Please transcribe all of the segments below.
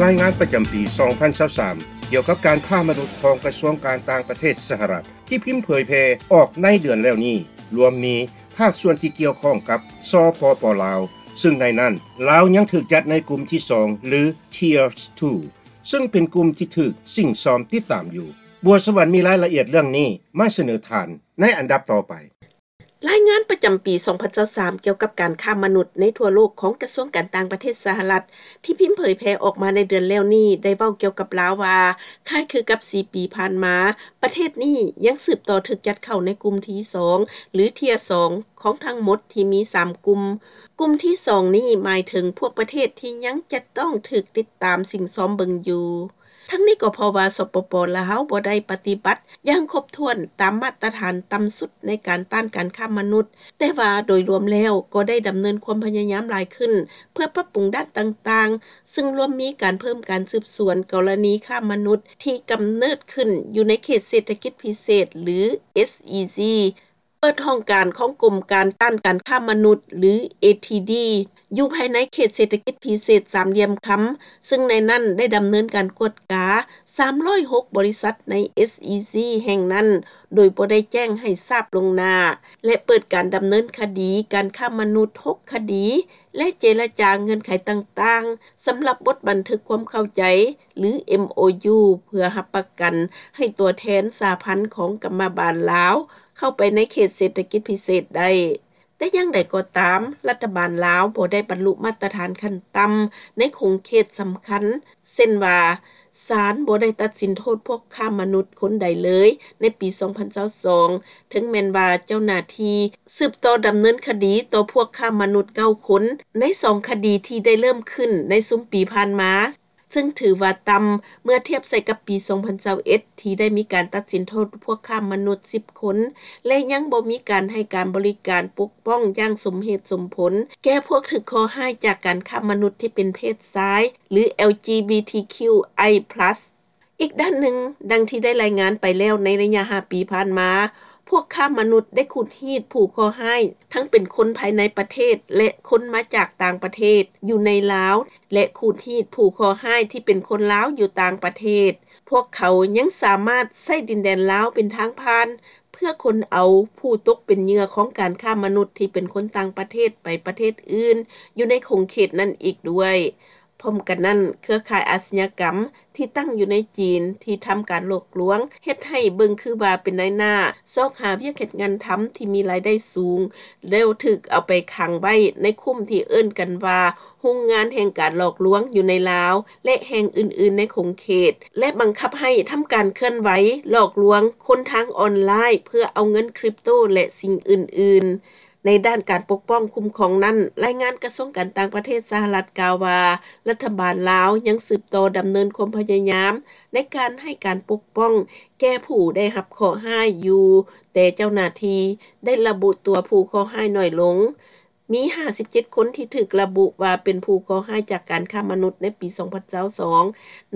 ລາຍງານປະຈຳປີ ສອງພັນຊາວສາມ ກ່ຽວກັບການຄ້າມະນຸດຂອງກະຊວງການຕ່າງປະເທດສະຫະລັດ ທີ່ພິມເຜີຍແຜ່ອອກໃນເດືອນແລ້ວນີ້ ລວມມີພາກສ່ວນທີ່ກ່ຽວຂ້ອງກັບ ສປປ ລາວ ຊຶ່ງໃນນັ້ນ ລາວຍັງຖືກຈັດໃນກຸ່ມທີສອງ ຫຼື Tier two ຊຶ່ງເປັນກຸ່ມທີ່ຖືກສິ້ງຊອມຕິດຕາມຢູ່. ບົວສະຫວັນມີລາຍລະອຽດເລື່ອງນີ້ມາສະເໜີທ່ານໃນອັນດັບຕໍ່ໄປ. ລາຍງານປະຈຳປີ ສອງພັນຊາວສາມ ກ່ຽວກັບການຄ້າມະນຸດໃນທົ່ວໂລກຂອງກະຊວງການຕ່າງປະເທດສະຫະລັດ ທີ່ພິມເຜີຍແຜ່ອອກມາໃນເດືອນແລ້ວນີ້ ໄດ້ເວົ້າກ່ຽວກັບລາວວ່າ ຄ້າຍຄືກັບສີ່ປີຜ່ານມາ ປະເທດນີ້ຍັງສືບຕໍ່ຖືກຈັດເຂົ້າໃນກຸ່ມທີສອງ ຫຼື Tier two ຂອງທັງໝົດທີ່ມີສາມກຸ່ມ. ກຸ່ມທີສອງນີ້ໝາຍເຖິງພວກປະເທດທີ່ຍັງຈະຕ້ອງຖືກຕິດຕາມສິ້ງຊອມເບິ່ງຢູ່. ທັງນີ້ກໍເພາະວ່າ ສປປ ລາວ ບໍ່ໄດ້ປະຕິບັດຢ່າງຄົບຖ້ວນຕາມມາດຕະຖານຕ່ຳສຸດໃນການຕ້ານການຄ້າມະນຸດ, ແຕ່ວ່າໂດຍລວມແລ້ວກໍໄດ້ດຳເນີນຄວາມພະຍາຍາມຫຼາຍຂຶ້ນ ເພື່ອປັບປຸງດ້ານຕ່າງໆ, ຊຶ່ງລວມມີການເພີ່ມການສືບສວນກໍລະນີຄ້າມະນຸດທີ່ກຳເນີດຂຶ້ນຢູ່ໃນເຂດເສດຖະກິດພິເສດ ຫຼື SEZ, ເປີດຫ້ອງການຂອງກົມການຕ້ານການຄ້າມະນຸດ ຫຼື ATD ຢູ່ພາຍໃນເຂດເສດຖະກິດພິເສດສາມຫຼ່ຽມຄຳ, ຊຶ່ງໃນນັ້ນໄດ້ດຳເນີນການກວດກາສາມຮ້ອຍຫົກບໍລິສັດໃນ SEZ ແຫ່ງນັ້ນ ໂດຍບໍ່ໄດ້ແຈ້ງໃຫ້ຊາບລ່ວງໜ້າ ແລະ ເປີດການດຳເນີນຄະດີການຄ້າມະນຸດຫົກຄະດີ ແລະ ເຈລະຈາເງື່ອນໄຂຕ່າງໆ ສຳລັບບົດບັນທຶກຄວາມເຂົ້າໃຈ ຫຼື MOU ເພື່ອຮັບປະກັນໃຫ້ຕົວແທນສະຫະພັນຂອງກຳມະບານລາວ ເຂົ້າໄປໃນເຂດເສດຖະກິດພິເສດໄດ້. ແຕ່ຢ່າງໃດກໍຕາມ, ລັດຖະບານລາວບໍ່ໄດ້ບັນລຸມາດຕະຖານຂັ້ນຕ່ຳໃນຂົງເຂດສຳຄັນ, ເຊັ່ນວ່າ, ສານບໍ່ໄດ້ຕັດສິນໂທດພວກຄ້າມະນຸດຄົນໃດເລີຍໃນປີສອງພັນຊາວສອງ, ເຖິງແມ່ນວ່າເຈົ້າໜ້າທີ່ສືບຕໍ່ດຳເນີນຄະດີຕໍ່ພວກຄ້າມະນຸດເກົ້າຄົນ ໃນສອງຄະດີທີ່ໄດ້ເລີ່ມຂຶ້ນໃນຊຸມປີຜ່ານມາ. ຊຶ່ງຖືວ່າຕ່ຳເມື່ອທຽບໃສ່ກັບປີສອງພັນຊາວເອັດ ທີ່ໄດ້ມີການຕັດສິນໂທດພວກຄ້າມະນຸດສິບຄົນ ແລະ ຍັງບໍ່ມີການໃຫ້ການບໍລິການປົກປ້ອງຢ່າງສົມເຫດສົມຜົນ ແກ່ພວກຖືກເຄາະຮ້າຍຈາກການຄ້າມະນຸດທີ່ເປັນເພດຊາຍ ຫຼື LGBTQI+. ອີກດ້ານໜຶ່ງ, ດັ່ງທີ່ໄດ້ລາຍງານໄປແລ້ວ, ໃນໄລຍະຫ້າປີຜ່ານມາ, ພວກຄ້າມະນຸດໄດ້ຂູດຮີດຜູ້ເຄາະຮ້າຍ ທັງເປັນຄົນພາຍໃນປະເທດ ແລະ ຄົນມາຈາກຕ່າງປະເທດ ຢູ່ໃນລາວ ແລະ ຂູດຮີດຜູ້ເຄາະຮ້າຍທີ່ເປັນຄົນລາວຢູ່ຕ່າງປະເທດ. ພວກເຂົາຍັງສາມາດໃຊ້ດິນແດນລາວເປັນທາງຜ່ານ ເພື່ອຂົນເອົາຜູ້ຕົກເປັນເຫຍື່ອຂອງການຄ້າມະນຸດທີ່ເປັນຄົນຕ່າງປະເທດໄປປະເທດອື່ນ ຢູ່ໃນຂົງເຂດນັ້ນອີກດ້ວຍ. ພ້ອມກັນນັ້ນ, ເຄືອຂ່າຍອາຊຍາກຳທີ່ຕັ້ງຢູ່ໃນຈີນ ທີ່ທຳການຫຼອກລວງ ເຮັດໃຫ້ເບິ່ງຄືວ່າເປັນນາຍໜ້າ ຊອກຫາວຽກເຮັດງານທຳທີ່ມີລາຍໄດ້ສູງ ແລ້ວຖືກເອົາໄປຂັງໄວ້ໃນຄຸ້ມທີ່ເອີ້ນກັນວ່າ ໂຮງງານແຫ່ງການຫຼອກລວງຢູ່ໃນລາວ ແລະ ແຫ່ງອື່ນໆໃນຂົງເຂດ ແລະ ບັງຄັບໃຫ້ທຳການເຄື່ອນໄຫວຫຼອກລວງຄົນທາງອອນລາຍ ເພື່ອເອົາເງິນຄຣິບໂຕ ແລະ ສິ່ງອື່ນໆ. ໃນດ້ານການປົກປ້ອງຄຸ້ມຄອງນັ້ນ, ລາຍງານກະຊວງການຕ່າງປະເທດສະຫະລັດກ່າວວ່າ, ລັດຖະບານລາວຍັງສືບຕໍ່ດຳເນີນຄວາມພະຍາຍາມໃນການໃຫ້ການປົກປ້ອງແກ່ຜູ້ໄດ້ຮັບເຄາະຮ້າຍຢູ່, ແຕ່ເຈົ້າໜ້າທີ່ໄດ້ລະບຸຕົວຜູ້ເຄາະຮ້າຍໜ້ອຍລົງ. ມີຫ້າສິບເຈັດຄົນທີ່ຖືກລະບຸວ່າເປັນຜູ້ເຄາະຮ້າຍຈາກການຄ້າມະນຸດໃນປີສອງພັນຊາວສອງ,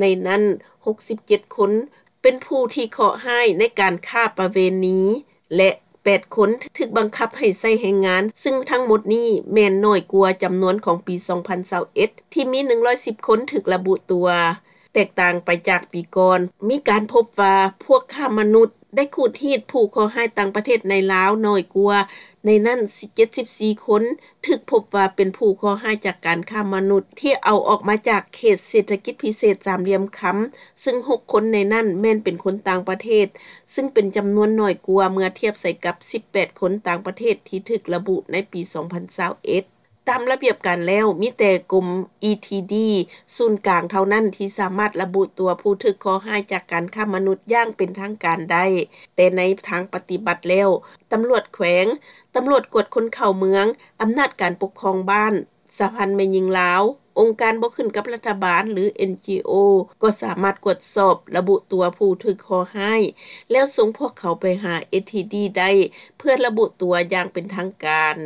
ໃນນັ້ນຫົກສິບເຈັດຄົນ ເປັນຜູ້ທີ່ເຄາະຮ້າຍໃນການຄ້າປະເວນີ ແລະ ແປດຄົນຖືກບັງຄັບໃຫ້ໃຊ້ແຮງງານ, ຊຶ່ງທັງໝົດນີ້ແມ່ນໜ້ອຍກວ່າຈຳນວນຂອງປີສອງພັນຊາວເອັດ ທີ່ມີໜຶ່ງຮ້ອຍສິບຄົນຖືກລະບຸຕົວ. ແຕກຕ່າງໄປຈາກປີກ່ອນ, ມີການພົບວ່າພວກຄ້າມະນຸດໄດ້ຂູດຮີດຜູ້ເຄາະຮ້າຍຕ່າງປະເທດໃນລາວໜ້ອຍກວ່າ, ໃນນັ້ນເຈັດສິບສີ່ຄົນ ຖືກພົບວ່າເປັນຜູ້ເຄາະຮ້າຍຈາກການຄ້າມະນຸດທີ່ເອົາອອກມາຈາກເຂດເສດຖະກິດພິເສດສາມຫຼ່ຽມຄຳ, ຊຶ່ງຫົກຄົນໃນນັ້ນແມ່ນເປັນຄົນຕ່າງປະເທດ, ຊຶ່ງເປັນຈຳນວນໜ້ອຍກວ່າເມື່ອທຽບໃສ່ກັບສິບແປດຄົນຕ່າງປະເທດທີ່ຖືກລະບຸໃນປີສອງພັນຊາວເອັດ. ຕາມລະບຽບການແລ້ວ, ມີແຕ່ກົມ ETD ສູນກາງເທົ່ານັ້ນທີ່ສາມາດລະບຸຕົວຜູ້ຖືກເຄາະຮ້າຍຈາກການຄ້າມະນຸດຢ່າງເປັນທາງການໄດ້, ແຕ່ໃນທາງປະຕິບັດແລ້ວ, ຕຳຫຼວດແຂວງ, ຕຳຫຼວດກວດຄົນເຂົ້າເມືອງ, ອຳນາດການປົກຄອງບ້ານ, ສະຫະພັນແມ່ຍິງລາວ, ອົງການບໍ່ຂຶ້ນກັບລັດຖະບານ ຫຼື NGO ກໍສາມາດກວດສອບລະບຸຕົວຜູ້ຖືກເຄາະຮ້າຍ ແລ້ວສົ່ງພວກເຂົາໄປຫາ ETD ໄດ້ ເພື່ອລະບຸຕົວຢ່າງເປັນທາງການ.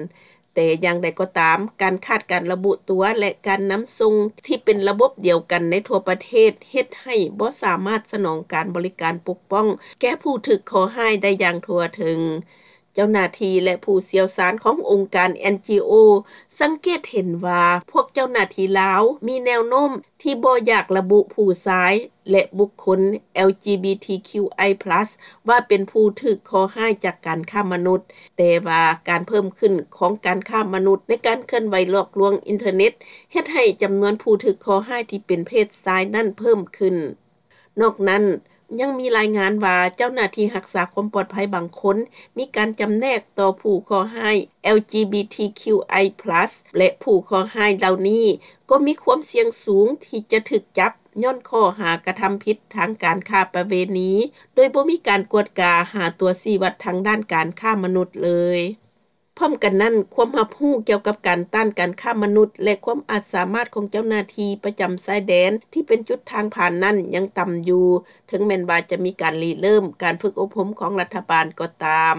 ແຕ່ຢ່າງໃດກໍຕາມ, ການຂາດການລະບຸຕົວ ແລະ ການນຳສົ່ງທີ່ເປັນລະບົບດຽວກັນໃນທົ່ວປະເທດ ເຮັດໃຫ້ບໍ່ສາມາດສະໜອງການບໍລິການປົກປ້ອງແກ່ຜູ້ຖືກເຄາະຮ້າຍໄດ້ຢ່າງທົ່ວເຖິງ. ເຈົ້າໜ້າທີ່ ແລະ ຜູ້ຊ່ຽວຊານ ຂອງອົງການ NGO ສັງເກດເຫັນວ່າ ພວກເຈົ້າໜ້າທີ່ລາວ ມີແນວໂນ້ມ ທີ່ບໍ່ຢາກລະບຸ ຜູ້ຊາຍ ແລະ ບຸກຄົນ LGBTQI+ ວ່າເປັນຜູ້ຖືກເຄາະຮ້າຍ ຈາກການຄ້າມະນຸດ, ແຕ່ວ່າການເພີ່ມຂຶ້ນ ຂອງການຄ້າມະນຸດ ໃນການເຄື່ອນໄຫວຫຼອກລວງອິນເຕີເນັດ ເຮັດໃຫ້ຈຳນວນຜູ້ຖືກເຄາະຮ້າຍ ທີ່ເປັນເພດຊາຍນັ້ນເພີ່ມຂຶ້ນ. ນອກນັ້ນ, ຍັງມີລາຍງານວ່າ ເຈົ້າໜ້າທີ່ຮັກສາຄວາມປອດໄພບາງຄົນ ມີການຈຳແນກຕໍ່ຜູ້ເຄາະຮ້າຍ LGBTQI+ ແລະ ຜູ້ເຄາະຮ້າຍເຫຼົ່ານີ້ ກໍມີຄວາມສ່ຽງສູງ ທີ່ຈະຖືກຈັບ ຍ້ອນຂໍ້ຫາກະທຳຜິດ ທາງການຄ້າປະເວນີ ໂດຍບໍ່ມີການກວດກາ ຫາຕົວຊີ້ວັດ ທາງດ້ານການຄ້າມະນຸດເລີຍ. ພ້ອມກັນນັ້ນ, ຄວາມຮັບຮູ້ກ່ຽວກັບການຕ້ານການຄ້າມະນຸດ ແລະ ຄວາມອາດສາມາດ ຂອງເຈົ້າໜ້າທີ່ ປະຈຳຊາຍແດນ ທີ່ເປັນຈຸດທາງຜ່ານນັ້ນ ຍັງຕ່ຳຢູ່, ເຖິງແມ່ນວ່າ ຈະມີການລິເລີ່ມ ການຝຶກອົບຮົມ ຂອງລັດຖະບານກໍຕາມ.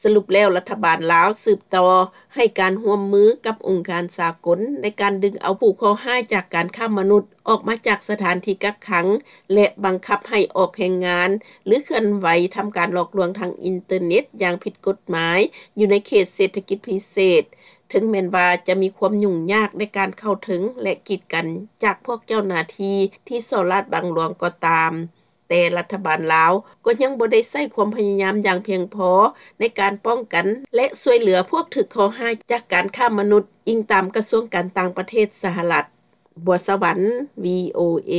ສະຫຼຸບແລ້ວ, ລັດຖະບານລາວ ສືບຕໍ່ໃຫ້ການຮ່ວມມື ກັບອົງການສາກົນ ໃນການດຶງເອົາຜູ້ເຄາະຮ້າຍ ຈາກການຄ້າມະນຸດ ອອກມາຈາກສະຖານທີ່ກັກຂັງ ແລະ ບັງຄັບໃຫ້ອອກແຮງງານ ຫຼື ເຄື່ອນໄຫວ ທຳການຫຼອກລວງ ທາງອິນເຕີເນັດ ຢ່າງຜິດກົດໝາຍ ຢູ່ໃນເຂດເສດຖະກິດພິເສດ, ເຖິງແມ່ນວ່າ ຈະມີຄວາມຫຍຸ້ງຍາກ ໃນການເຂົ້າເຖິງ ແລະ ກີດກັນ ຈາກພວກເຈົ້າໜ້າທີ່ ທີ່ສໍ້ລາດບັງຫຼວງກໍຕາມ, ແຕ່ລັດຖະບານລາວ ກໍຍັງບໍ່ໄດ້ໃຊ້ຄວາມພະຍາຍາມ ຢ່າງພຽງພໍ ໃນການປ້ອງກັນ ແລະ ຊ່ວຍເຫຼືອ ພວກຖືກເຄາະຮ້າຍ ຈາກການຄ້າມະນຸດ, ອີງຕາມກະຊວງການຕ່າງປະເທດ ສະຫະລັດ. ບົວສະຫວັນ ວີໂອເອ.